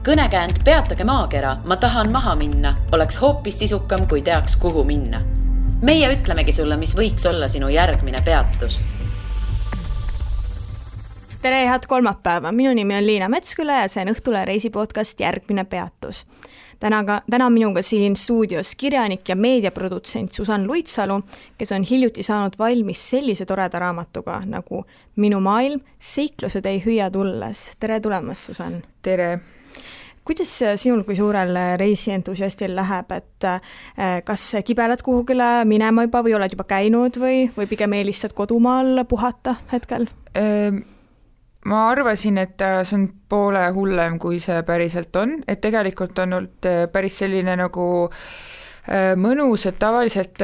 Kõnekäänd Peatage maakera, ma tahan maha minna, oleks hoopis sisukam, kui teaks, kuhu minna. Meie ütlemegi sulle, mis võiks olla sinu järgmine peatus. Tere, head kolmapäeva. Minu nimi on Liina Metsküla ja see on Õhtule reisipodcast Järgmine peatus. Täna minuga siin stuudios kirjanik ja meediaprodutsent Susann Luitsalu, kes on hiljuti saanud valmis sellise toreda raamatuga nagu Minu maailm, seiklused ei hüüa tulles. Tere tulemast, Susann. Tere. Kuidas sinul kui suurel reisientusiastil läheb, et kas kibelad kuhugile minema juba või oled juba käinud või pigem eelistad kodumaal puhata hetkel? Ma arvasin, et see on poole hullem, kui see päriselt on, et tegelikult on olnud päris selline nagu mõnus, et tavaliselt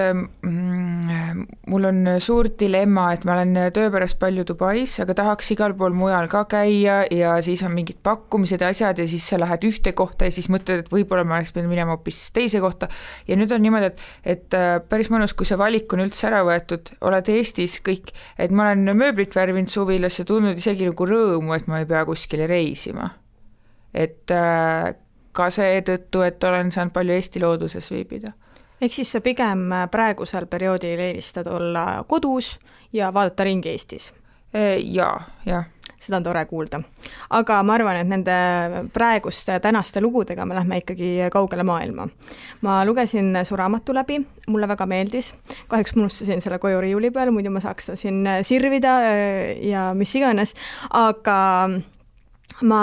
mul on suur dilemma, et ma olen töö pärast palju Dubais, aga tahaks igal pool mujal ka käia ja siis on mingid pakkumised ja asjad ja siis sa lähed ühte kohta ja siis mõtled, et võib-olla ma oleks pidanud minema hoopis teise kohta ja nüüd on niimoodi, et päris mõnus, kui see valik on üldse ära võetud, oled Eestis kõik, et ma olen mööblit värvinud suvilas ja tundnud isegi nagu rõõmu, et ma ei pea kuskile reisima. Et ka seetõttu, et olen saanud palju Eesti looduses viibida. Ehk siis sa pigem praegusel perioodil eelistad olla kodus ja vaadata ringi Eestis? Jaa. Seda on tore kuulda. Aga ma arvan, et nende praeguste tänaste lugudega me lähme ikkagi kaugele maailma. Ma lugesin su raamatu läbi, mulle väga meeldis. Kahjuks ma unustasin selle koju riiuli peal, muidu ma saaks ta siin sirvida ja mis iganes. Aga ma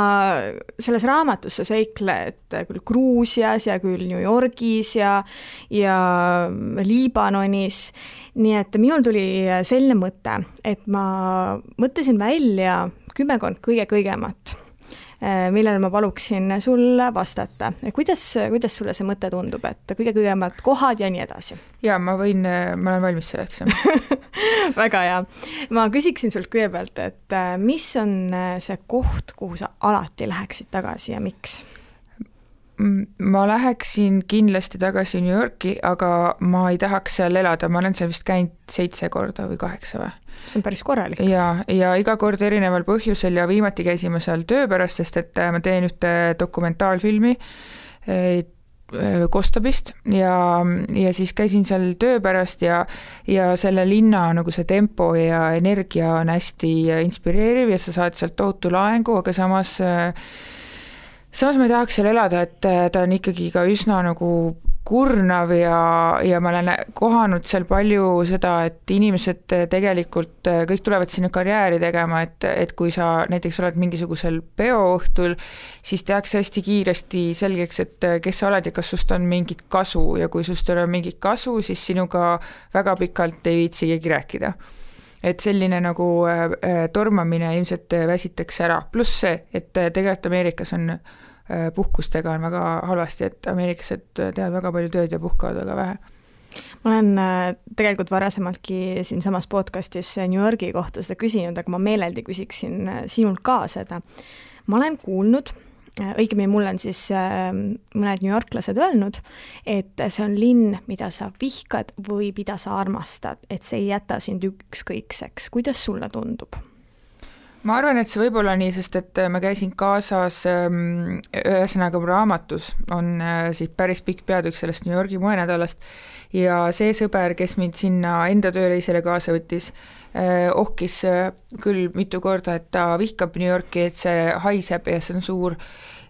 selles raamatus sa seikled küll Gruusias ja küll New Yorgis ja Liibanonis, nii et minul tuli selline mõte, et ma mõtlesin välja 10 kõigemat, millele ma paluksin sul vastata. Kuidas sulle see mõte tundub, et kõigemad kohad ja nii edasi? Jaa, ma olen valmis selleks. Väga hea. Ma küsiksin sult kõigepealt, et mis on see koht, kuhu sa alati läheksid tagasi ja miks? Ma läheksin kindlasti tagasi New Yorki, aga ma ei tahaks seal elada. Ma olen seal vist käinud 7 korda või 8 või? See on päris korralik. Ja iga kord erineval põhjusel ja viimati käisime seal töö pärast, sest et ma teen ühte dokumentaalfilmi Kostabist ja siis käisin seal töö pärast ja selle linna nagu see tempo ja energia on hästi inspireeriv ja sa saad sealt tohutu laengu, aga samas ma ei tahaks seal elada, et ta on ikkagi ka üsna nagu kurnav ja ma olen kohanud seal palju seda, et inimesed tegelikult kõik tulevad sinna karjääri tegema, et kui sa näiteks oled mingisugusel peoõhtul, siis tehakse hästi kiiresti selgeks, et kes sa oled ja kas sust on mingit kasu ja kui sust ei ole mingit kasu, siis sinuga väga pikalt ei viitsi keegi rääkida. Et selline nagu tormamine ilmselt väsitaks ära. Pluss see, et tegelikult Ameerikas on puhkustega on väga halvasti, et ameeriklased teevad väga palju tööd ja puhkavad väga vähe. Ma olen tegelikult varasemaltki siin samas podcastis New Yorgi kohta seda küsinud, aga ma meeleldi küsiksin sinult ka seda. Ma olen kuulnud, õigemini mul on siis mõned New Yorklased öelnud, et see on linn, mida sa vihkad või mida sa armastad, et see ei jäta sind ükskõikseks. Kuidas sulle tundub? Ma arvan, et see võib olla nii, sest et ma käisin kaasas ühesõnaga raamatus on siis päris pikk peatükk sellest New Yorgi moenädalast ja see sõber, kes mind sinna enda tööreisele kaasa võttis, ohkis küll mitu korda, et ta vihkab New Yorki, et see haiseb ja see on suur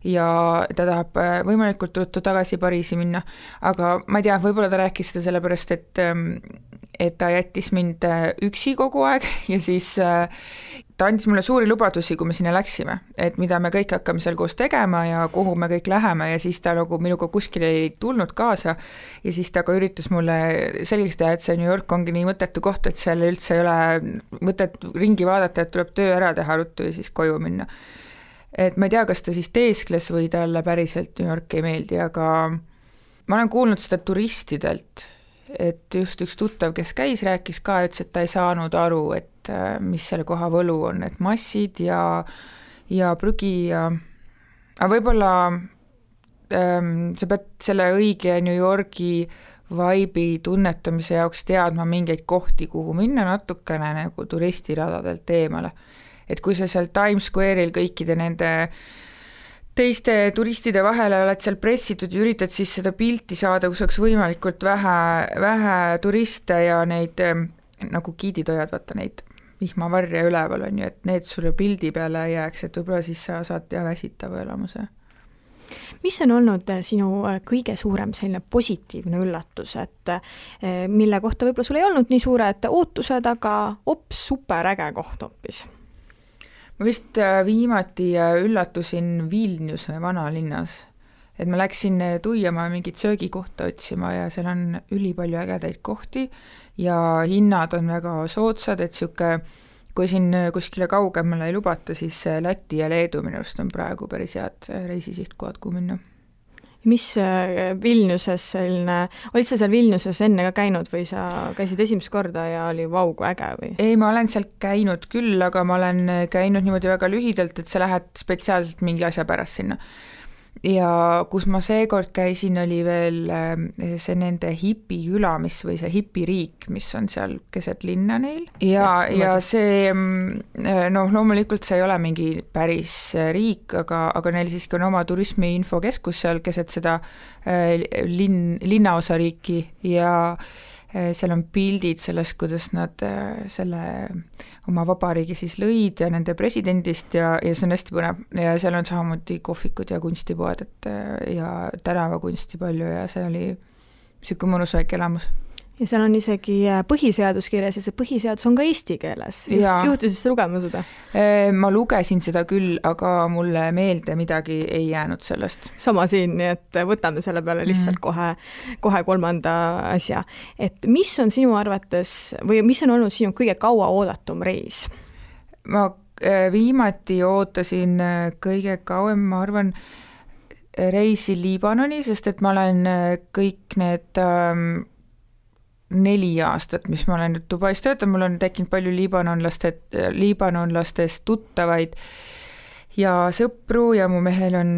ja ta tahab võimalikult ruttu tagasi Pariisi minna, aga ma ei tea, võib-olla ta rääkis seda sellepärast, et ta jättis mind üksi kogu aeg ja siis ta andis mulle suuri lubadusi, kui me sinna läksime, et mida me kõik hakkame seal koos tegema ja kuhu me kõik läheme ja siis ta nagu minuga kuskil ei tulnud kaasa ja siis ta ka üritas mulle selgeks teha, et see New York ongi nii mõttetu koht, et seal üldse ei ole mõtet ringi vaadata, et tuleb töö ära teha ruttu ja siis koju minna. Et ma ei tea, kas ta siis teeskles või talle päriselt New York ei meeldi, aga ma olen kuulnud seda turistidelt, et just üks tuttav, kes käis, rääkis ka, ütles, et ta ei saanud aru, et mis selle koha võlu on, et massid ja prügi aga võib-olla sa pead selle õige New Yorgi vibe'i tunnetamise jaoks teadma mingeid kohti, kuhu minna natukene nagu turistiradadelt eemale. Et kui sa seal Times Square'il kõikide nende teiste turistide vahele oled seal pressitud ja üritad siis seda pilti saada, kus oleks võimalikult vähe turiste ja neid nagu giidid hoiad, vaata neid vihmavarje üleval on ju, et need sulle pildi peale jääks, et võib-olla siis sa saad väsitava elamuse. Mis on olnud sinu kõige suurem selline positiivne üllatus, et mille kohta võib-olla sul ei olnud nii suured ootused, aga super äge koht hoopis? Ma vist viimati üllatusin Vilniuse vanalinnas, et ma läksin Tuiamaa mingit söögikohta otsima ja seal on ülipalju ägedaid kohti ja hinnad on väga soodsad, et kui siin kuskile kaugemale ei lubata, siis Läti ja Leedu minu arust on praegu päris head reisisihtkohad, kuhu minna. Mis Vilniuses selline, olid sa seal Vilniuses enne ka käinud või sa käisid esimest korda ja oli vau, kui äge või? Ei, ma olen sealt käinud küll, aga ma olen käinud niimoodi väga lühidalt, et sa lähed spetsiaalselt mingi asja pärast sinna. Ja kus ma seekord käisin, oli veel see nende hipiküla, või see hipiriik, mis on seal keset linna neil. Ja see, loomulikult see ei ole mingi päris riik, aga neil siiski on oma turismiinfokeskus seal keset seda linnaosariiki ja seal on pildid sellest, kuidas nad selle oma vabariigi siis lõid ja nende presidendist ja see on hästi põnev ja seal on samamoodi kohvikud ja kunstipoed ja tänavakunsti palju ja see oli niisugune mõnus väike elamus. Ja seal on isegi põhiseadus kirjas ja see põhiseadus on ka eesti keeles. Juhtusid sa lugema seda? Ma lugesin seda küll, aga mulle meelde midagi ei jäänud sellest. Sama siin, nii et võtame selle peale lihtsalt kohe kolmanda asja. Et mis on sinu arvates või mis on olnud sinu kõige kaua oodatum reis? Ma viimati ootasin kõige kauem, ma arvan, reisi Liibanoni, sest et ma olen kõik need 4 aastat, mis ma olen nüüd Dubais töötanud, mul on tekkinud palju liibanonlastest tuttavaid ja sõpru ja mu mehel on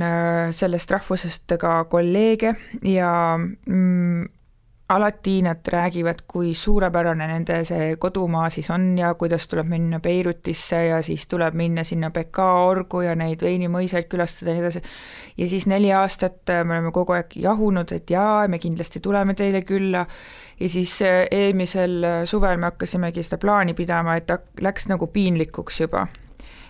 sellest rahvusest ka kolleege ja alati nad räägivad, kui suurepärane nende see kodumaa siis on ja kuidas tuleb minna Beirutisse ja siis tuleb minna sinna Beka orgu ja neid veinimõisaid külastada ja nii edasi. Ja siis 4 aastat me oleme kogu aeg jahunud, et jaa, me kindlasti tuleme teile külla ja siis eelmisel suvel me hakkasimegi seda plaani pidama, et läks nagu piinlikuks juba.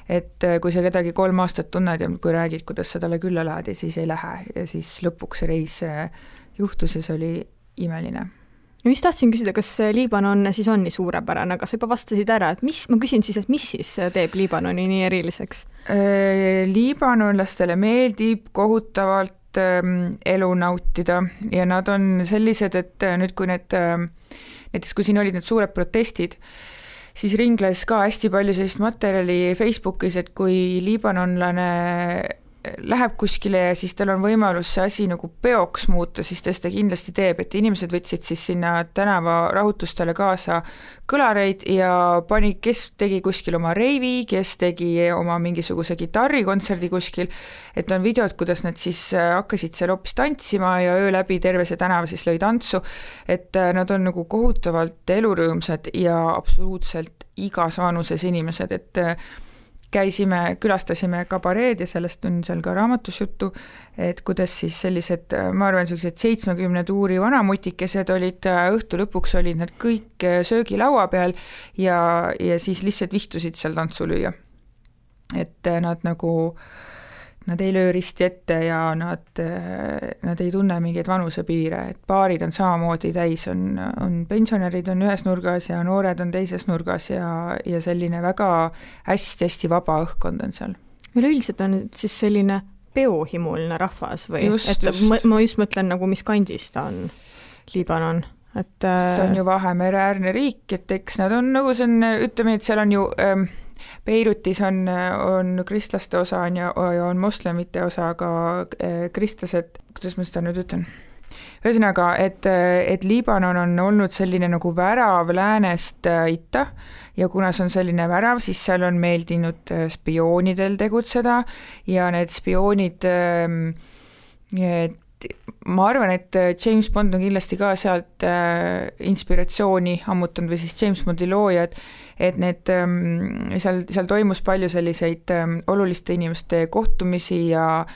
Et kui sa kedagi 3 aastat tunned ja kui räägid, kuidas sa talle külla lähed ja siis ei lähe ja siis lõpuks reis juhtus ja see oli imeline. Mis tahtsin küsida, kas Liibanon siis on nii suurepärane, aga sa juba vastasid ära, et ma küsin siis, et mis siis teeb Liibanoni nii eriliseks? Liibanonlastele meeldib kohutavalt elu nautida ja nad on sellised, et nüüd kui näiteks kui siin olid need suured protestid, siis ringles ka hästi palju sellist materjali Facebookis, et kui liibanonlane läheb kuskile ja siis tal on võimalus see asi nagu peoks muuta, siis ta seda kindlasti teeb, et inimesed võtsid siis sinna tänava rahutustele kaasa kõlareid ja kes tegi kuskil oma reivi, kes tegi oma mingisuguse gitarrikontserdi kuskil, et on videod, kuidas nad siis hakkasid seal hoopis tantsima ja öö läbi terve see tänava siis lõi tantsu, et nad on nagu kohutavalt elurõõmsad ja absoluutselt igas vanuses inimesed, et külastasime kabareed ja sellest on seal ka raamatus juttu, et kuidas siis sellised, ma arvan, sellised 70 tuuri vanamutikesed olid, õhtu lõpuks olid nad kõik söögilaua peal ja siis lihtsalt vihtusid seal tantsu lüüa. Et nad ei löö risti ette ja nad ei tunne mingeid vanusepiire, et baarid on samamoodi täis, on pensionärid on ühes nurgas ja noored on teises nurgas ja selline väga hästi vaba õhkkond on seal. Üleüldiselt on siis selline peohimuline rahvas või? Ma just mõtlen nagu, mis kandis ta on, Liibanon. See on ju Vahemereäärne riik, et eks nad on nagu see on, ütleme, et seal on ju Beirutis on kristlaste osa ja on moslemite osa, aga kristlased, kuidas ma seda nüüd ütlen? Ühesõnaga, et Liibanon on olnud selline nagu värav läänest itta ja kuna see on selline värav, siis seal on meeldinud spioonidel tegutseda ja need spioonid, ma arvan, et James Bond on kindlasti ka sealt inspiratsiooni ammutanud või siis James Bondi loojad, et need, seal toimus palju selliseid oluliste inimeste kohtumisi ja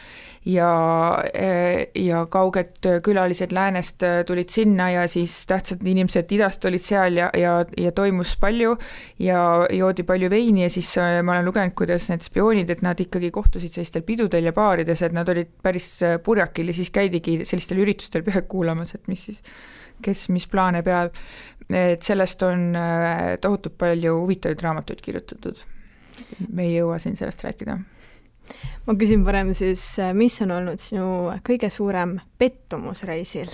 kauged külalised läänest tulid sinna ja siis tähtsad inimesed idast olid seal ja toimus palju ja joodi palju veini ja siis ma olen lugenud, kuidas need spioonid, et nad ikkagi kohtusid sellistel pidudel ja baarides, et nad olid päris purjakil ja siis käidigi sellistel üritustel pealt kuulamas, et mis siis, kes mis plaane peab. Et sellest on tohutult palju huvitavaid raamatuid kirjutatud. Me ei jõua siin sellest rääkida. Ma küsin parem siis, mis on olnud sinu kõige suurem pettumus reisil?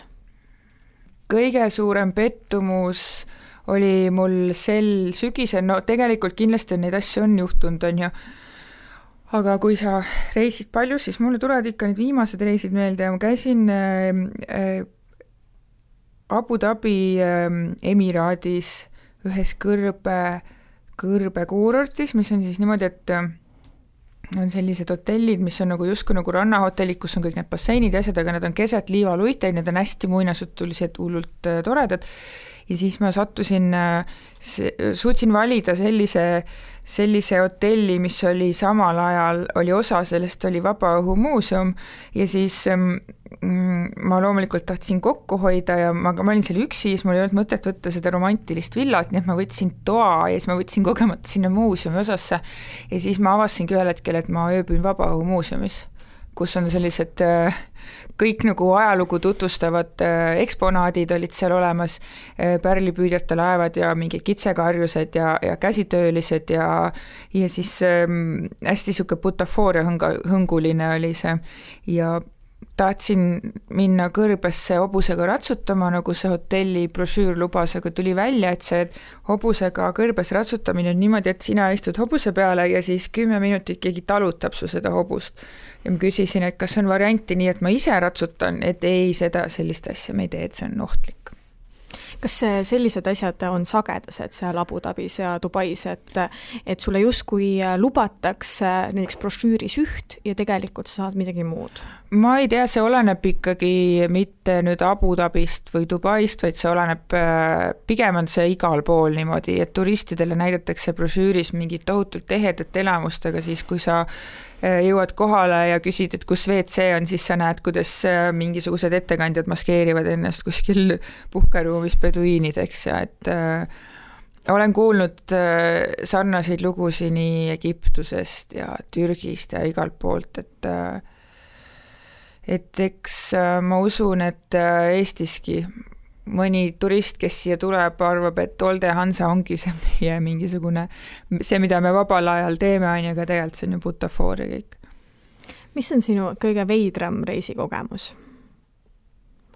Kõige suurem pettumus oli mul sel sügisel, no tegelikult kindlasti neid asju on juhtunud, on ju, aga kui sa reisid palju, siis mulle tulevad ikka need viimased reisid meelde ja ma käisin Abu Dhabi Emiraadis ühes kõrbe kuurortis, mis on siis niimoodi, et on sellised hotellid, mis on nagu justkui nagu rannahotellid, kus on kõik need basseinid ja asjad, aga need on keset liivaluiteid, need on hästi muinasjutulised, hullult toredad. Ja siis ma suutsin valida sellise hotelli, mis oli samal ajal, oli osa sellest, oli Vabaõhumuuseum ja siis ma loomulikult tahtsin kokku hoida ja ma olin seal üksi, siis mul ei olnud mõtet võtta seda romantilist villat, nii et ma võtsin toa ja siis ma võtsin kogemata sinna muuseumi osasse ja siis ma avastasingi ühel hetkel, et ma ööbin Vabaõhumuuseumis, kus on sellised kõik nagu ajalugu tutvustavad eksponaadid olid seal olemas, pärlipüüdjate laevad ja mingid kitsekarjused ja käsitöölised ja siis hästi siuke butafooria hõnguline oli see ja tahtsin minna kõrbesse hobusega ratsutama, nagu see hotelli brošüür lubas, aga tuli välja, et see hobusega kõrbes ratsutamine on niimoodi, et sina istud hobuse peale ja siis 10 minutit keegi talutab su seda hobust. Ja ma küsisin, et kas on varianti nii, et ma ise ratsutan, et ei, sellist asja me ei tee, et see on ohtlik. Kas sellised asjad on sagedased seal Abu Dhabis ja Dubais, et sulle justkui lubatakse näiteks brošüüris üht ja tegelikult sa saad midagi muud? Ma ei tea, see oleneb ikkagi mitte nüüd Abu Dhabist või Dubaist, vaid see oleneb, pigem on see igal pool niimoodi, et turistidele näidatakse brošüüris mingit tohutult ehedat elamust, aga siis kui sa jõuad kohale ja küsid, et kus WC on, siis sa näed, kuidas mingisugused ettekandjad maskeerivad ennast kuskil puhkeruumis peduiinideks ja et olen kuulnud sarnaseid lugusid nii Egiptusest ja Türgist ja igalt poolt, et eks ma usun, et Eestiski mõni turist, kes siia tuleb, arvab, et Olde Hansa ongi see meie mingisugune, see, mida me vabal ajal teeme, aga tegelikult see on ju butafooria kõik. Mis on sinu kõige veidram reisikogemus?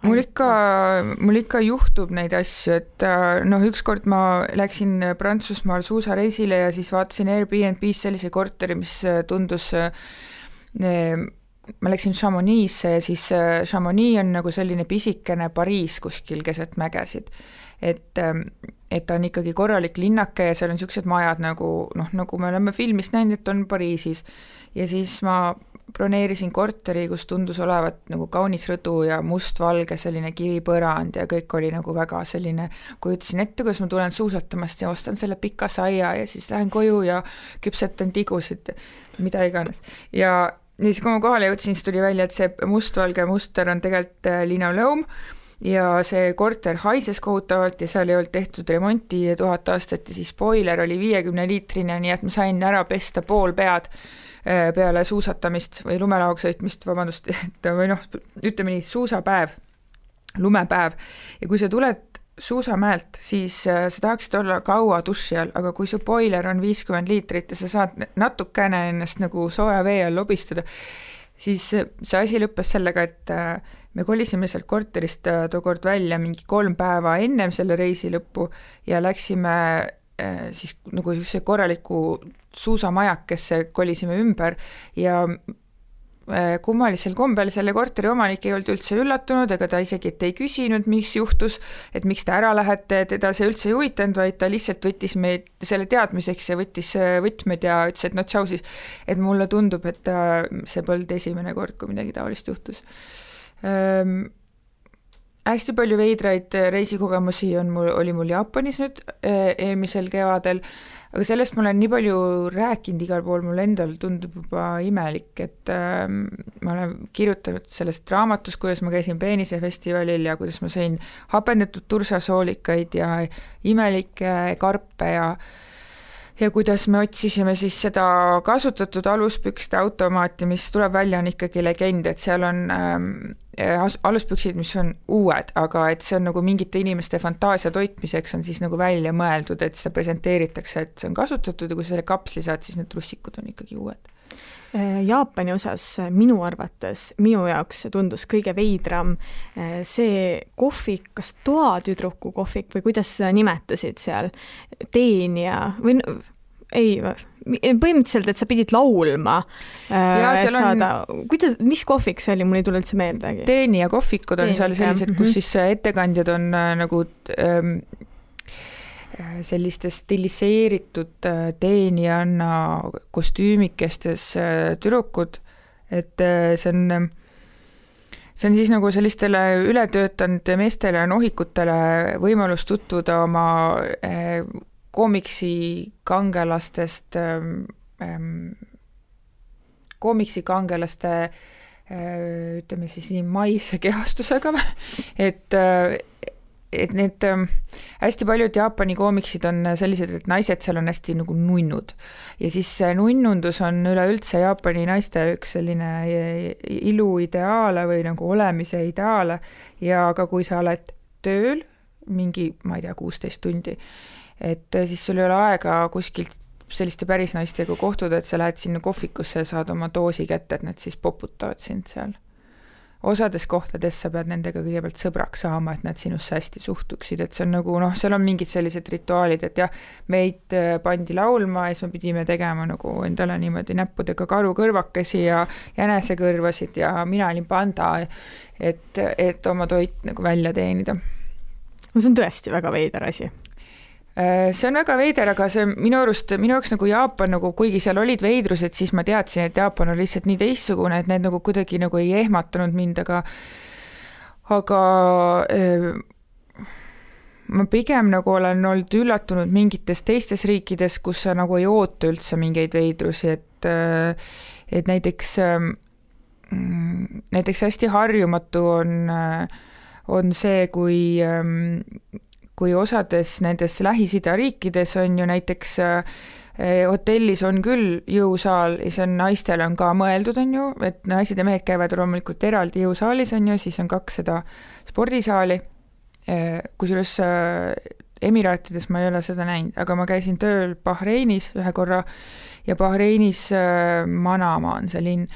Mul ikka juhtub neid asju, et ükskord ma läksin Prantsusmaal suusareisile ja siis vaatasin Airbnb's sellise korteri, mis tundus ma läksin Chamonix'e ja siis Chamonix on nagu selline pisikene Pariis kuskil keset mägesid. Et ta on ikkagi korralik linnake ja seal on niisugused majad nagu me oleme filmist näinud, et on Pariisis. Ja siis ma broneerisin korteri, kus tundus olevat nagu kaunis rõdu ja mustvalge selline kivipõrand ja kõik oli nagu väga selline, kui ütlesin ette, kuidas ma tulen suusatamast ja ostan selle pika saia ja siis lähen koju ja küpsetan tigusid, mida iganes. Ja siis kui ma kohale jõudsin, siis tuli välja, et see mustvalge muster on tegelikult linoleum ja see korter haises kohutavalt ja seal ei olnud tehtud remonti 1000 aastat ja siis spoiler oli 50-liitrine, nii et ma sain ära pesta pool pead peale suusatamist või lumelaoga sõitmist, vabandust, või ütleme nii, suusapäev, lumepäev ja kui sa tuled suusamäelt, siis sa tahaksid olla kaua duši all, aga kui su boiler on 50 liitrit ja sa saad natukene ennast nagu sooja vee all lobistada, siis see asi lõppes sellega, et me kolisime sealt korterist tookord välja mingi 3 päeva ennem selle reisi lõppu ja läksime siis nagu see korraliku suusamajakesse kolisime ümber ja kummalisel kombel selle korteri omanik ei olnud üldse üllatunud, ega ta isegi ei küsinud, mis juhtus, et miks te ära lähete, teda see üldse ei huvitanud, vaid ta lihtsalt võttis meid selle teadmiseks ja võttis võtmed ja ütles, et tšau siis, et mulle tundub, et see polnud esimene kord, kui midagi taolist juhtus. hästi palju veidraid reisikogemusi oli mul Jaapanis nüüd eelmisel kevadel, aga sellest ma olen nii palju rääkinud igal pool, mul endal tundub juba imelik, et ma olen kirjutanud sellest raamatus, kuidas ma käisin peenisefestivalil ja kuidas ma sõin hapendatud tursasoolikaid ja imelikke karpe ja kuidas me otsisime siis seda kasutatud aluspükste automaati, mis tuleb välja, on ikkagi legend, et seal on aluspüksid, mis on uued, aga et see on nagu mingite inimeste fantaasia toitmiseks on siis nagu välja mõeldud, et seda presenteeritakse, et see on kasutatud ja kui selle kapsli saad, siis need trussikud on ikkagi uued. Jaapani osas minu arvates, minu jaoks tundus kõige veidram see kohvik, kas toatüdruku kohvik või kuidas sa nimetasid seal, teenija või ei, põhimõtteliselt, et sa pidid laulma saada, kuidas, mis kohvik see oli, mul ei tule üldse meeldegi. Teenija kohvikud on seal sellised, kus siis ettekandjad on nagu selliste stiliseeritud teenijanna kostüümikestes tüdrukud, et see on siis nagu sellistele ületöötanud meestele ja nohikutele võimalus tutvuda oma koomiksikangelastest, ütleme siis nii maise kehastusega, et need hästi paljud Jaapani koomiksid on sellised, et naised seal on hästi nagu nunnud ja siis nunnundus on üleüldse Jaapani naiste üks selline iluideaale või nagu olemise ideaale ja ka kui sa oled tööl mingi, ma ei tea, 16 tundi, et siis sul ei ole aega kuskilt selliste päris naistega kohtuda, et sa lähed sinna kohvikusse ja saad oma doosi kätte, et nad siis poputavad sind seal. Osades kohtades sa pead nendega kõigepealt sõbraks saama, et nad sinusse hästi suhtuksid, et see on nagu, seal on mingid sellised rituaalid, et jah, meid pandi laulma ja siis me pidime tegema nagu endale niimoodi näppudega karukõrvakesi ja jänesekõrvasid ja mina olin panda, et oma toit nagu välja teenida. See on tõesti väga veider asi. See on väga veider, aga see minu jaoks nagu Jaapan, nagu kuigi seal olid veidrused, siis ma teadsin, et Jaapan on lihtsalt nii teistsugune, et need nagu kuidagi nagu ei ehmatanud mind, aga ma pigem nagu olen olnud üllatunud mingites teistes riikides, kus sa nagu ei oota üldse mingeid veidrusi, et näiteks hästi harjumatu on see, kui osades nendes Lähis-Ida riikides on ju näiteks hotellis on küll jõusaal ja see on naistel on ka mõeldud, on ju, et naised ja mehed käivad loomulikult eraldi jõusaalis, on ju, siis on 2 spordisaali, kusjuures Emiraatides ma ei ole seda näinud, aga ma käisin tööl Bahreinis ühe korra ja Bahreinis Manama on see linn,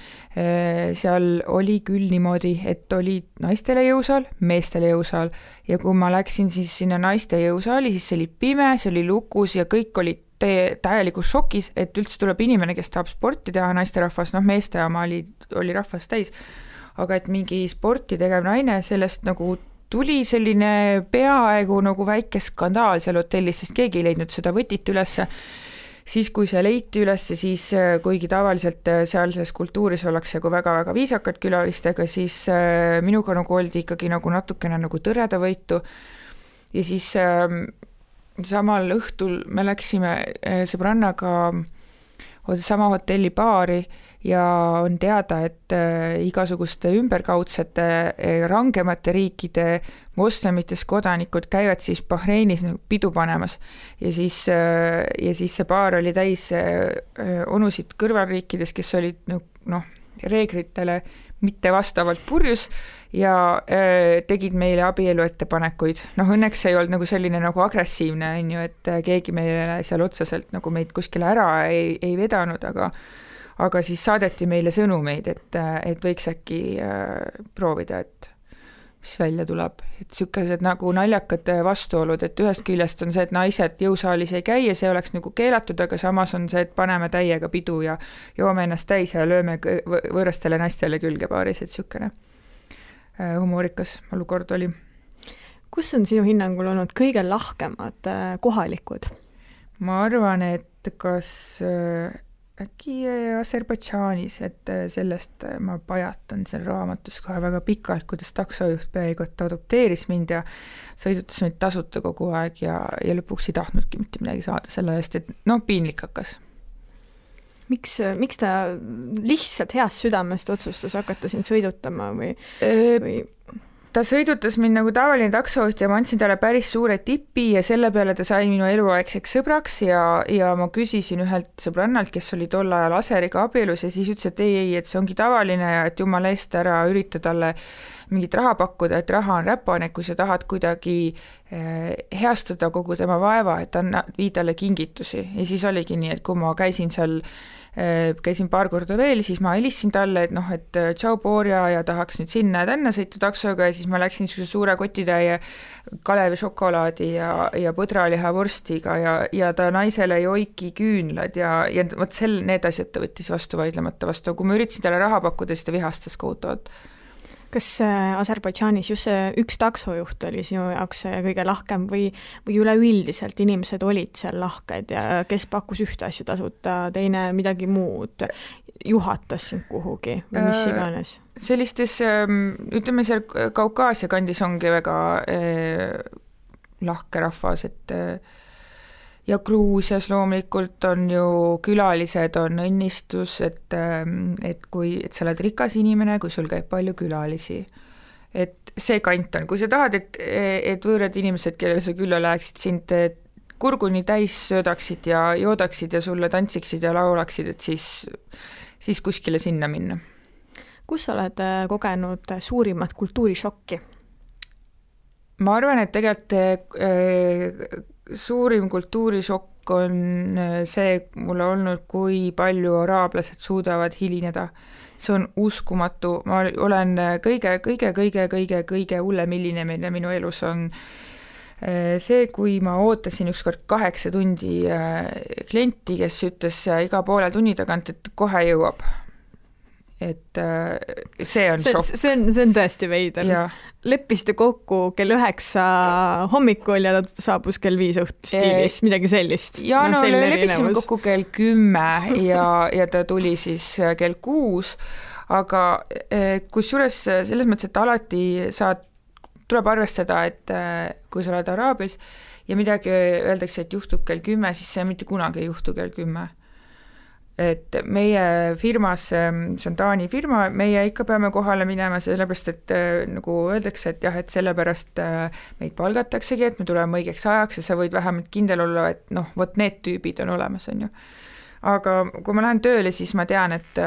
seal oli küll niimoodi, et oli naistele jõusaal, meestele jõusaal ja kui ma läksin siis sinna naiste jõusaali, siis see oli pime, see oli lukus ja kõik olid täielikus šokis, et üldse tuleb inimene, kes tahab sporti teha, naisterahvas, meeste oma oli rahvas täis, aga et mingi sporti tegev naine, sellest nagu tuli selline peaaegu nagu väike skandaal seal hotellis, sest keegi ei leidnud seda võtit ülesse. Siis kui see leiti ülesse, siis kuigi tavaliselt sealses kultuuris ollakse nagu väga-väga viisakad külalistega, siis minuga nagu oldi ikkagi nagu natukene nagu tõreda võitu. Ja siis samal õhtul me läksime sõbrannaga sama hotelli baari ja on teada, et igasuguste ümberkaudsete rangemate riikide moslemitest kodanikud käivad siis Bahreinis pidu panemas ja siis see baar oli täis onusid kõrvalriikides, kes olid reeglitele mitte vastavalt purjus ja tegid meile abielu ettepanekuid. Õnneks ei olnud nagu selline nagu agressiivne, on ju, et keegi meile seal otseselt nagu meid kuskile ära ei vedanud, aga siis saadeti meile sõnumeid, et võiks äkki proovida, et mis välja tuleb. Et sükased nagu naljakad vastuolud, et ühest küljest on see, et naised jõusaalis ei käi ja see oleks nagu keelatud, aga samas on see, et paneme täiega pidu ja joome ennast täis ja lööme võõrastele naistele külge paaris, et sükene humoorikas olukord oli. Kus on sinu hinnangul olnud kõige lahkemad kohalikud? Ma arvan, et kas äkki Aserbaidžaanis, et sellest ma pajatan seal raamatus kohe väga pikalt, kuidas taksojuht peaaegu et adopteeris mind ja sõidutas mind tasuta kogu aeg ja lõpuks ei tahtnudki mitte midagi saada selle eest, et piinlik hakkas. Miks ta lihtsalt heast südamest otsustas hakata sind sõidutama või? Ta sõidutas mind nagu tavaline taksojuht ja ma andsin talle päris suure tipi ja selle peale ta sai minu eluaegseks sõbraks ja ma küsisin ühelt sõbrannalt, kes oli tol ajal Aseriga abielus ja siis ütles, et ei, et see ongi tavaline ja et jumala eest ära ürita talle mingit raha pakkuda, et raha on räpane, kui sa tahad kuidagi heastada kogu tema vaeva, et vii talle kingitusi ja siis oligi nii, et kui ma käisin paar korda veel, siis ma helistasin talle, et tšau Borja ja tahaks nüüd sinna ja tänna sõita taksoga ja siis ma läksin suure kotitäie Kalevi šokolaadi ja põdraliha vorstiga ja ta naisele joiki küünlad ja vot need asjad ta võttis vastu vaidlemata vastu, kui ma üritasin talle raha pakkuda, siis ta vihastas kohutavalt. Kas Aserbaidžaanis just see üks taksojuht oli sinu jaoks kõige lahkem või üleüldiselt inimesed olid seal lahked ja kes pakkus ühte asja tasuta, teine midagi muud, juhatas sind kuhugi või mis iganes? Sellistes, ütleme seal Kaukaasia kandis ongi väga lahke rahvas, et ja Gruusias loomulikult on ju külalised, on õnnistus, et sa oled rikas inimene, kui sul käib palju külalisi. Et see kant on, kui sa tahad, et võõrad inimesed, kellele sa külla läheksid, sind kurguni täis söödaksid ja joodaksid ja sulle tantsiksid ja laulaksid, et siis kuskile sinna minna. Kus sa oled kogenud suurimat kultuurishokki? Ma arvan, et tegelikult suurim kultuurishokk on see mulle olnud, kui palju araablased suudavad hilineda. See on uskumatu. Ma olen kõige hullem hilinemine minu elus on see, kui ma ootasin ükskord 8 tundi klienti, kes ütles iga poole tunni tagant, et kohe jõuab. Et see on šokk. See on tõesti veider. Leppisite kokku kell 9 hommikul ja ta saabus kell 5 stiilis, midagi sellist. Ja leppisime kokku kell 10 ja ta tuli siis kell 6, aga kusjuures selles mõttes, et alati tuleb arvestada, et kui sa oled Araabias ja midagi öeldakse, et juhtub kell 10, siis see mitte kunagi ei juhtu kell 10. Et meie firmas, see on Taani firma, meie ikka peame kohale minema, sellepärast, et nagu öeldakse, et jah, et sellepärast meid palgataksegi, et me tuleme õigeks ajaks ja sa võid vähemalt kindel olla, et vot need tüübid on olemas, on ju. Aga kui ma lähen tööle, siis ma tean, et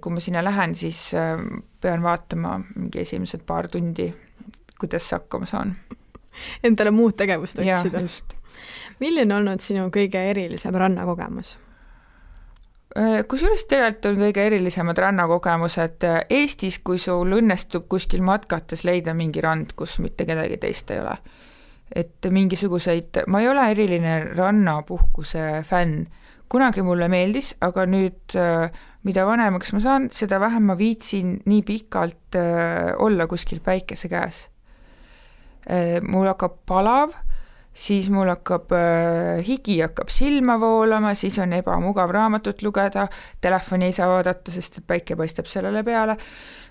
kui ma sinna lähen, siis pean vaatama mingi esimesed paar tundi, kuidas see hakkama saan. Endale muud tegevust otsida. Ja, just. Milline on olnud sinu kõige erilisem rannakogemus? Kusjuures tegelikult on kõige erilisemad rannakogemused Eestis, kui sul õnnestub kuskil matkates leida mingi rand, kus mitte kedagi teist ei ole. Et mingisuguseid, ma ei ole eriline rannapuhkuse fänn. Kunagi mulle meeldis, aga nüüd, mida vanemaks ma saan, seda vähem ma viitsin nii pikalt olla kuskil päikese käes. Mul hakkab palav, siis mul hakkab higi hakkab silma voolama, siis on ebamugav raamatut lugeda, telefoni ei saa vaadata, sest päike paistab sellele peale.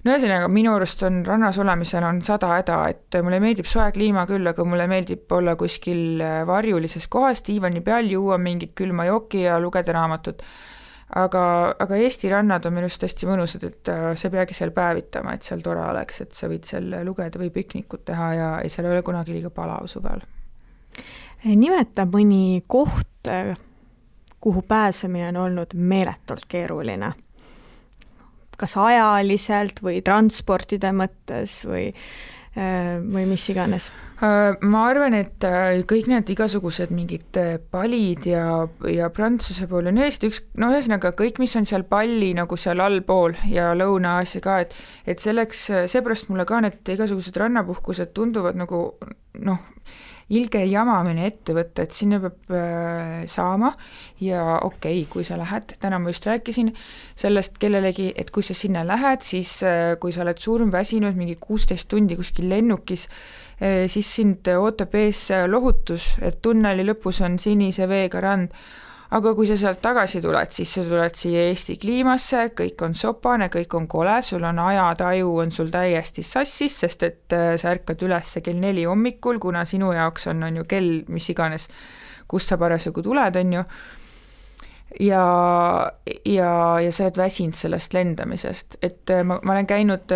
Ühesõnaga, minu arust on rannas olemisel on 100 häda, et mulle meeldib soe kliima küll, aga mulle meeldib olla kuskil varjulises kohas, diivani peal, juua mingit külma jooki ja lugeda raamatut. Aga Eesti rannad on minust hästi mõnusad, et sa peagi seal päevitama, et seal tore oleks, et sa võid seal lugeda või piknikut teha ja seal ei ole kunagi liiga palav suvel. Nimeta mõni koht, kuhu pääsemine on olnud meeletult keeruline. Kas ajaliselt või transportide mõttes või mis iganes? Ma arvan, et kõik need igasugused mingid palid ja Prantsuse pool on ühesõnaga kõik, mis on seal palli nagu seal allpool ja Lõuna-Aasia ka, et selleks, seepärast mulle ka need igasugused rannapuhkused tunduvad nagu ilge jamamine ette võtta, et sinna peab saama ja okei, kui sa lähed, täna ma just rääkisin sellest kellelegi, et kui sa sinna lähed, siis kui sa oled suurm väsinud mingi 16 tundi kuskil lennukis, siis sind ootab ees lohutus, et tunneli lõpus on sinise veega rand, aga kui sa sealt tagasi tuled, siis sa tuled siia Eesti kliimasse, kõik on sopane, kõik on kole, sul on ajataju, on sul täiesti sassis, sest et sa ärkad üles kell 4 hommikul, kuna sinu jaoks on ju kell, mis iganes, kust sa parasjagu tuled, on ju, ja sa oled väsinud sellest lendamisest, et ma olen käinud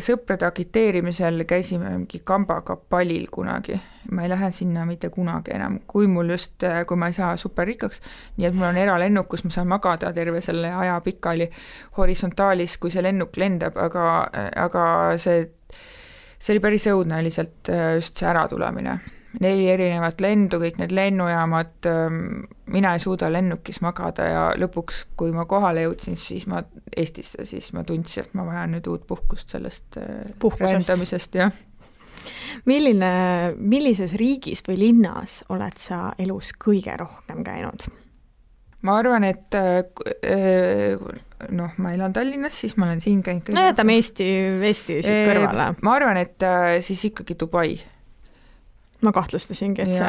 sõprade agiteerimisel, käisime mingi kambaga palil kunagi, ma ei lähe sinna mitte kunagi enam, kui ma ei saa superrikkaks, nii et mul on eralennuk, kus ma saan magada terve selle aja pikali horisontaalis, kui see lennuk lendab, aga see oli päris õudne lihtsalt just see äratulemine. 4 erinevat lendu, kõik need lennujaamad, mina ei suuda lennukis magada ja lõpuks, kui ma kohale jõudsin Eestisse, siis ma tundsin, et ma vajan nüüd uut puhkust sellest rändamisest, jah. Millises riigis või linnas oled sa elus kõige rohkem käinud? Ma arvan, et ma elan Tallinnas, siis ma olen siin käinud. No jätame Eesti siit kõrvale. Ma arvan, et siis ikkagi Dubai. Ma kahtlustasingi, et see.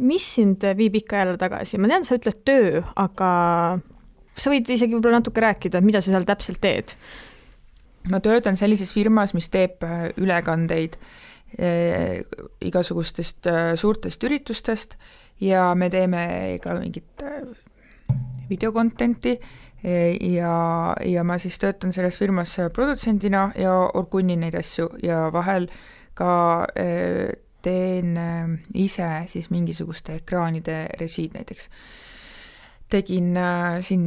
Mis sind viib ikka jälle tagasi? Ma tean, sa ütled töö, aga sa võid isegi võib-olla natuke rääkida, mida sa seal täpselt teed? Ma töötan sellises firmas, mis teeb ülekandeid igasugustest suurtest üritustest ja me teeme ka mingit videokontenti ja ma siis töötan selles firmas produtsendina ja orgunnin neid asju ja vahel ka teen ise siis mingisuguste ekraanide režiid näiteks. Tegin siin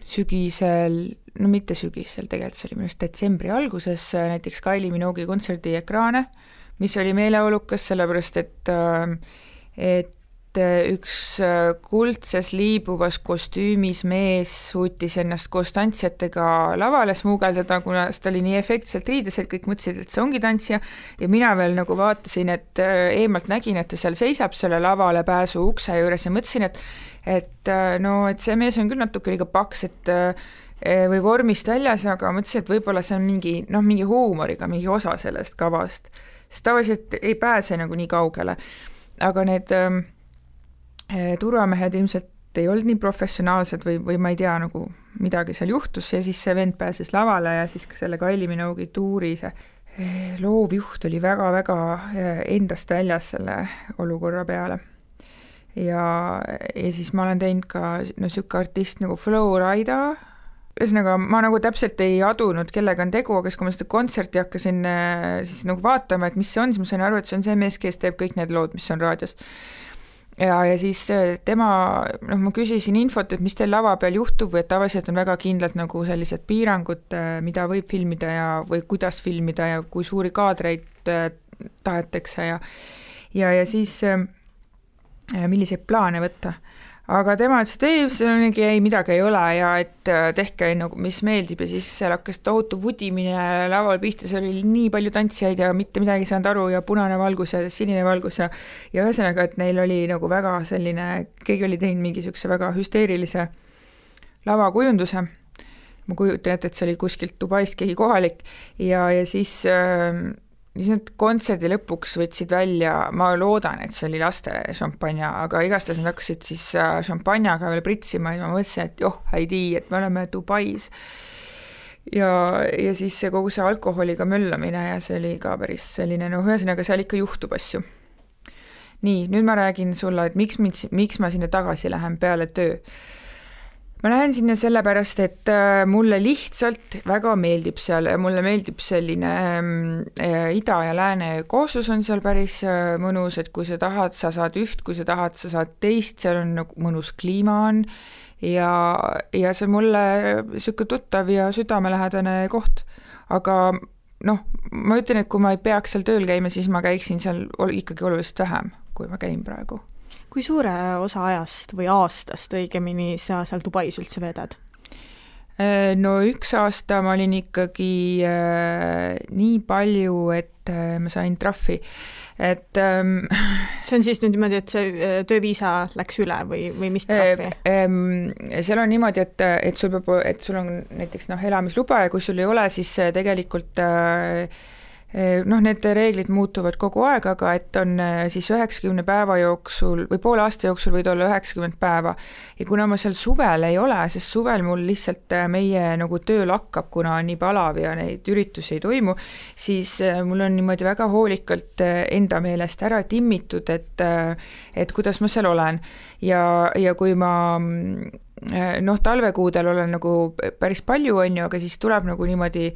sügisel, no mitte sügisel, tegelikult see oli minust detsembri alguses näiteks Kylie Minogue'i kontserdi ekraane, mis oli meeleolukas, sellepärast et üks kuldses liibuvas kostüümis mees suutis ennast koos tantsijatega lavale smuugeldada, kuna seda oli nii efektselt riides, et kõik mõtlesid, et see ongi tantsija ja mina veel nagu vaatasin, et eemalt nägin, et ta seal seisab selle lavale pääsu ukse juures ja mõtlesin, et see mees on küll natuke liiga paks, või vormist väljas, aga mõtlesin, et võib-olla see on mingi huumoriga, mingi osa sellest kavast, sest tavaliselt ei pääse nagu nii kaugele, aga need turvamehed ilmselt ei olnud nii professionaalsed või ma ei tea, nagu midagi seal juhtus ja siis see vend pääses lavale ja siis ka selle Kylie Minogue'i tuuri see loovjuht oli väga-väga endast väljas selle olukorra peale. Ja siis ma olen teinud ka sükke artist nagu Flowrida, ühesõnaga ma nagu täpselt ei adunud, kellega on tegu, aga kui ma seda kontserti hakkasin siis nagu vaatama, et mis see on, siis ma sain aru, et see on see mees, kes teeb kõik need lood, mis on raadios. Ja siis tema, ma küsisin infot, et mis teil lava peal juhtub või et tavaliselt on väga kindlalt nagu sellised piirangud, mida võib filmida või kuidas filmida ja kui suuri kaadreid tahetakse ja siis milliseid plaane võtta. Aga tema ütles, et ei, midagi ei ole ja et tehke nagu, mis meeldib ja siis seal hakkas tohutu vudimine laval pihta, seal oli nii palju tantsijaid ja mitte midagi saanud aru ja punane valgus ja sinine valgus ja ühesõnaga, et neil oli nagu väga selline, keegi oli teinud mingisuguse väga hüsteerilise lavakujunduse. Ma kujutan, et see oli kuskilt Dubaist keegi kohalik ja siis need kontserdi lõpuks võtsid välja, ma loodan, et see oli laste šampanja, aga igastahes nad hakkasid siis šampanjaga veel pritsima ja ma mõtlesin, et häidi, et me oleme Dubais. Ja siis kogu see alkoholiga möllamine ja see oli ka päris selline, ühesõnaga seal ikka juhtub asju. Nii, nüüd ma räägin sulle, et miks ma sinna tagasi lähen peale töö. Ma lähen sinna sellepärast, et mulle lihtsalt väga meeldib seal, mulle meeldib selline ida ja lääne kooslus on seal päris mõnus, et kui sa tahad, sa saad üht, kui sa tahad, sa saad teist, seal on nagu mõnus kliima on ja see on mulle siuke tuttav ja südamelähedane koht, aga ma ütlen, et kui ma ei peaks seal tööl käima, siis ma käiksin seal ikkagi oluliselt vähem, kui ma käin praegu. Kui suure osa ajast või aastast õigemini sa seal Dubais üldse vedad? Üks aasta ma olin ikkagi nii palju, et ma sain trahvi. See on siis nüüd niimoodi, et see tööviisa läks üle või mis trahvi? Seal on niimoodi, et sul on näiteks elamisluba ja kui sul ei ole, siis tegelikult need reeglid muutuvad kogu aeg, aga et on siis 90 päeva jooksul või poole aasta jooksul võid olla 90 päeva. Ja kuna ma seal suvel ei ole, sest suvel mul lihtsalt meie nagu töö lakkab, kuna on nii palav ja neid üritusi ei toimu, siis mul on niimoodi väga hoolikalt enda meelest ära timmitud, et kuidas ma seal olen. Ja kui ma talvekuudel olen nagu päris palju, aga siis tuleb nagu niimoodi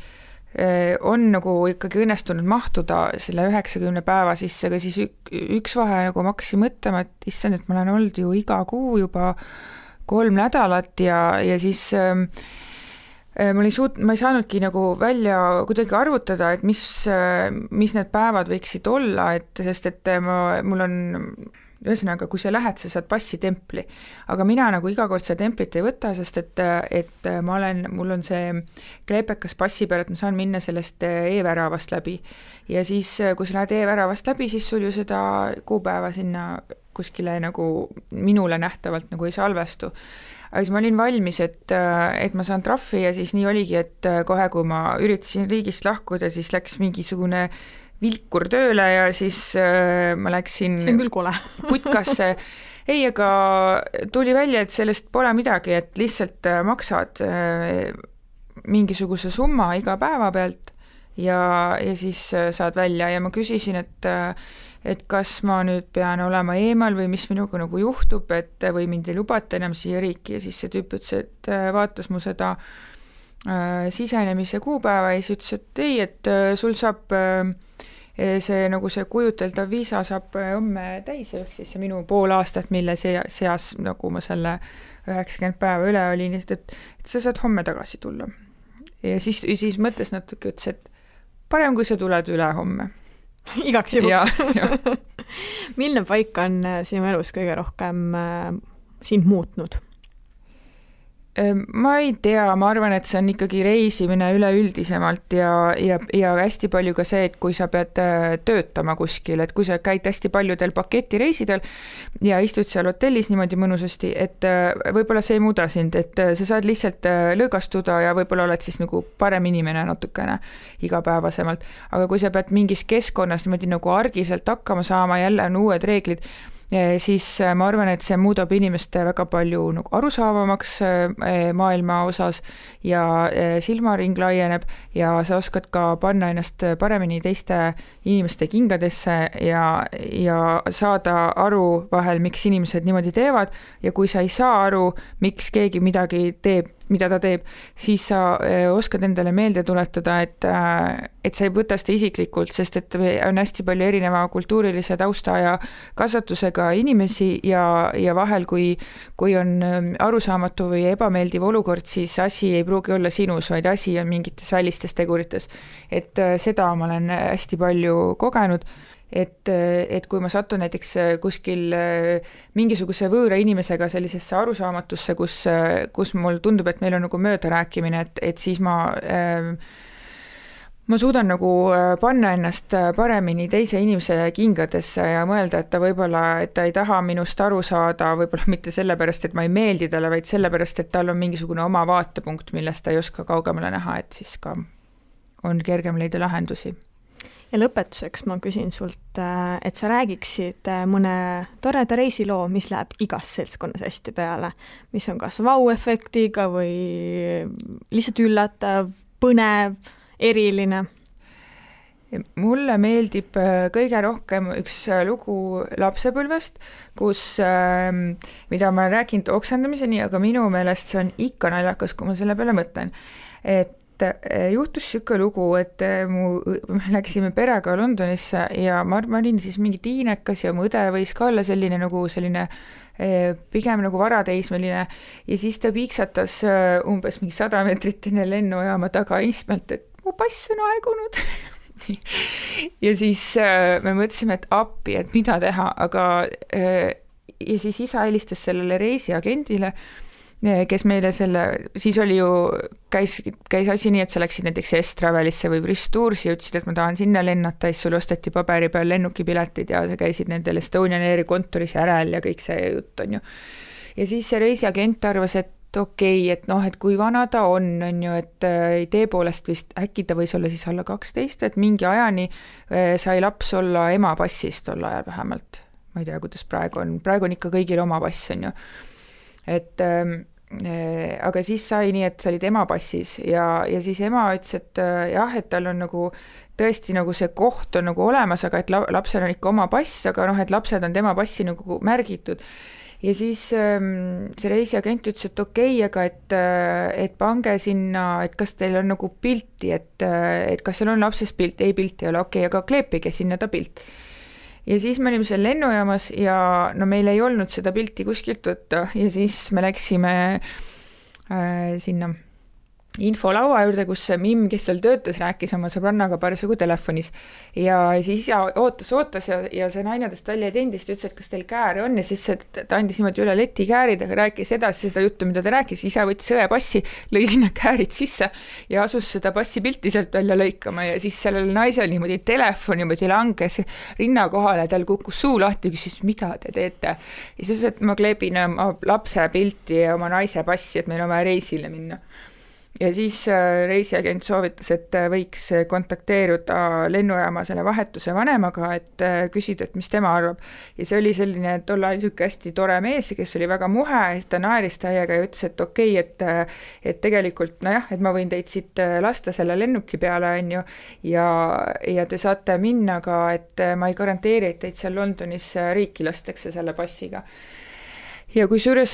on nagu ikkagi õnnestunud mahtuda selle 90 päeva sisse, aga siis üks vahe nagu ma hakkasin mõtlema, et issand, et ma olen olnud ju iga kuu juba 3 nädalat ja siis ma ei saanudki nagu välja kuidagi arvutada, et mis need päevad võiksid olla, sest mul on ühesõnaga, kui sa lähed, sa saad passitempli, aga mina nagu iga kord seda templit ei võta, sest et mul on see kleepekas passi peal, et ma saan minna sellest e-väravast läbi ja siis, kui sa lähed e-väravast läbi, siis sul ju seda kuupäeva sinna kuskile nagu minule nähtavalt nagu ei salvestu. Aga siis ma olin valmis, et ma saan trahvi ja siis nii oligi, et kohe, kui ma üritasin riigist lahkuda, siis läks mingisugune vilkur tööle ja siis ma läksin see on küll kole. putkasse. Ei, aga tuli välja, et sellest pole midagi, et lihtsalt maksad mingisuguse summa iga päeva pealt ja siis saad välja ja ma küsisin, et kas ma nüüd pean olema eemal või mis minuga nagu juhtub, või mind ei lubata enam siia riiki ja siis see tüüp ütles, et vaatas mu seda sisenemise kuupäeva ja siis ütles, et ei, et sul saab see nagu see kujuteldav viisa saab homme täis, ehk siis see minu pool aastat, mille seas nagu ma selle 90 päeva üle olin, et sa saad homme tagasi tulla. Ja siis mõtles natuke, ütles, et parem, kui sa tuled üle homme. Igaks juhuks. Milline paik on sinu elus kõige rohkem sind muutnud? Ma ei tea, ma arvan, et see on ikkagi reisimine üleüldisemalt ja hästi palju ka see, et kui sa pead töötama kuskil, et kui sa käid hästi paljudel paketireisidel ja istud seal hotellis niimoodi mõnusasti, et võib-olla see ei muuda sind, et sa saad lihtsalt lõõgastuda ja võib-olla oled siis nagu parem inimene natukene igapäevasemalt, aga kui sa pead mingis keskkonnas niimoodi nagu argiselt hakkama saama, jälle on uued reeglid, siis ma arvan, et see muudab inimeste väga palju nagu arusaavamaks maailma osas ja silmaring laieneb ja sa oskad ka panna ennast paremini teiste inimeste kingadesse ja saada aru vahel, miks inimesed niimoodi teevad ja kui sa ei saa aru, miks keegi midagi teeb, mida ta teeb, siis sa oskad endale meelde tuletada, et sa ei võta seda isiklikult, sest et on hästi palju erineva kultuurilise tausta ja kasvatusega inimesi ja vahel, kui on arusaamatu või ebameeldiv olukord, siis asi ei pruugi olla sinus, vaid asi on mingites välistes tegurites. Et seda ma olen hästi palju kogenud, et kui ma satun näiteks kuskil mingisuguse võõra inimesega sellisesse arusaamatusse, kus mul tundub, et meil on nagu möödarääkimine, et siis ma suudan nagu panna ennast paremini teise inimese kingadesse ja mõelda, et ta võib-olla, et ta ei taha minust aru saada, võib-olla mitte sellepärast, et ma ei meeldi talle, vaid sellepärast, et tal on mingisugune oma vaatepunkt, millest ta ei oska kaugemale näha, et siis ka on kergem leida lahendusi. Ja lõpetuseks ma küsin sult, et sa räägiksid mõne toreda reisiloo, mis läheb igas seltskonnas hästi peale, mis on kas vau-efektiga või lihtsalt üllatav, põnev, eriline. Mulle meeldib kõige rohkem üks lugu lapsepõlvest, mida ma olen rääkinud oksendamiseni, aga minu meelest see on ikka naljakas, kui ma selle peale mõtlen. Et juhtus siuke lugu, et me läksime perega Londonisse ja ma olin siis mingi tiinekas ja mu õde võis ka olla selline pigem nagu varateismeline ja siis ta piiksatas umbes mingi 100 meetrit enne lennujaama taga istmelt, et mu pass on aegunud. Ja siis me mõtlesime, et appi, et mida teha, aga ja siis isa helistas sellele reisiagendile, kes meile siis oli ju, käis asi nii, et sa läksid näiteks S-Travelisse või Bristoursi ja ütlesid, et ma tahan sinna lennata, siis sul osteti paberi peal lennukipiletid ja sa käisid nendel Estonian Airi kontoris järel ja kõik see jutt on ju. Ja siis see reisiagent arvas, et okei, et noh, et kui vana ta on ju, et idee poolest vist äkki ta võis olla siis alla 12, et mingi ajani sai laps olla ema passis tol ajal vähemalt. Ma ei tea, kuidas praegu on ikka kõigil oma pass, on ju. Et aga siis sai nii, et sa olid ema passis ja siis ema ütles, et jah, et tal on nagu tõesti nagu see koht on nagu olemas, aga et lapsel on ikka oma pass, aga noh, et lapsed on tema passi nagu märgitud. Ja siis see reisiagent ütles, et okei, aga et pange sinna, et kas teil on nagu pilti, et kas seal on lapsest pilt, ei pilti ei ole, okei, aga kleepige sinna ta pilt. Ja siis me olime seal lennujaamas ja no meil ei olnud seda pilti kuskilt võtta ja siis me läksime sinna infolaua juurde, kus Mimm, kes seal töötas, rääkis oma sõbrannaga parasjagu telefonis ja siis isa ootas ja see naine tõst välja tendist ütles, et kas teil kääre on ja siis ta andis niimoodi üle leti käärid, aga rääkis edasi seda juttu, mida ta rääkis, isa võttis õe passi, lõi sinna käärid sisse ja asus seda passi pilti sealt välja lõikama ja siis sellel naisel niimoodi telefon niimoodi langes rinna kohale, tal kukkus suu lahti ja küsis, mida te teete? Ja siis, et ma kleebin oma lapse pilti ja oma naise passi, et meil on vaja reisile minna. Ja siis reisiagent soovitas, et võiks kontakteeruda lennujaama selle vahetuse vanemaga, et küsida, et mis tema arvab. Ja see oli selline tol ajal hästi tore mees, kes oli väga muhe, ta naeris täiega ja ütles, et okei, et tegelikult, nojah, et ma võin teid siit lasta selle lennuki peale, on ju, ja te saate minna ka, et ma ei garanteeri, et teid seal Londonis riiki lastakse selle passiga. Ja kusjuures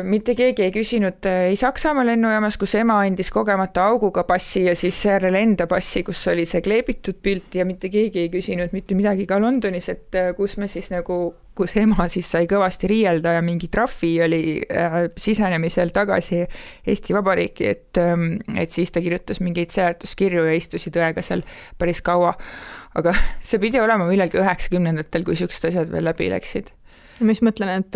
mitte keegi ei küsinud ei Saksamaa lennujaamas, kus ema andis kogemata auguga passi ja siis järele enda passi, kus oli see kleebitud pilt ja mitte keegi ei küsinud mitte midagi ka Londonis, et kus me siis nagu, kus ema siis sai kõvasti riielda ja mingi trahvi oli sisenemisel tagasi Eesti Vabariiki, et siis ta kirjutas mingeid seletuskirju ja istusid õega seal päris kaua. Aga see pidi olema millalgi 90-ndatel, kui siuksed asjad veel läbi läksid. Mis mõtlen, et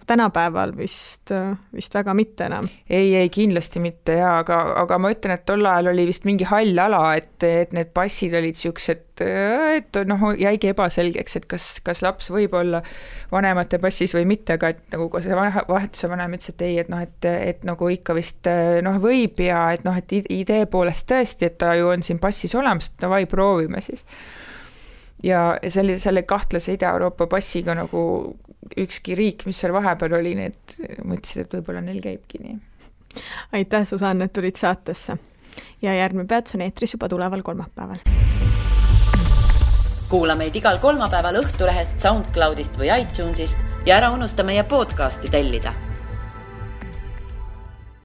tänapäeval vist väga mitte enam. Ei, kindlasti mitte, aga ma ütlen, et tol ajal oli vist mingi hall ala, et need passid olid siuksed, et noh, jäigi ebaselgeks, et kas laps võib olla vanemate passis või mitte, aga et nagu see vahetuse vanem ütles, et ei, et noh, et nagu ikka vist noh, võib ja et noh, et idee poolest tõesti, et ta ju on siin passis olemas, et davai, proovime siis. Ja selle kahtlase Ida-Euroopa passiga nagu ükski riik, mis seal vahepeal oli, need mõtlesid, et võib-olla neil käibki nii. Aitäh, Susanne, et tulid saatesse. Ja järgmine peats on eetris juba tuleval kolmapäeval. Kuula meid igal kolmapäeval Õhtulehest, SoundCloudist või iTunesist ja ära unusta meie podcasti tellida.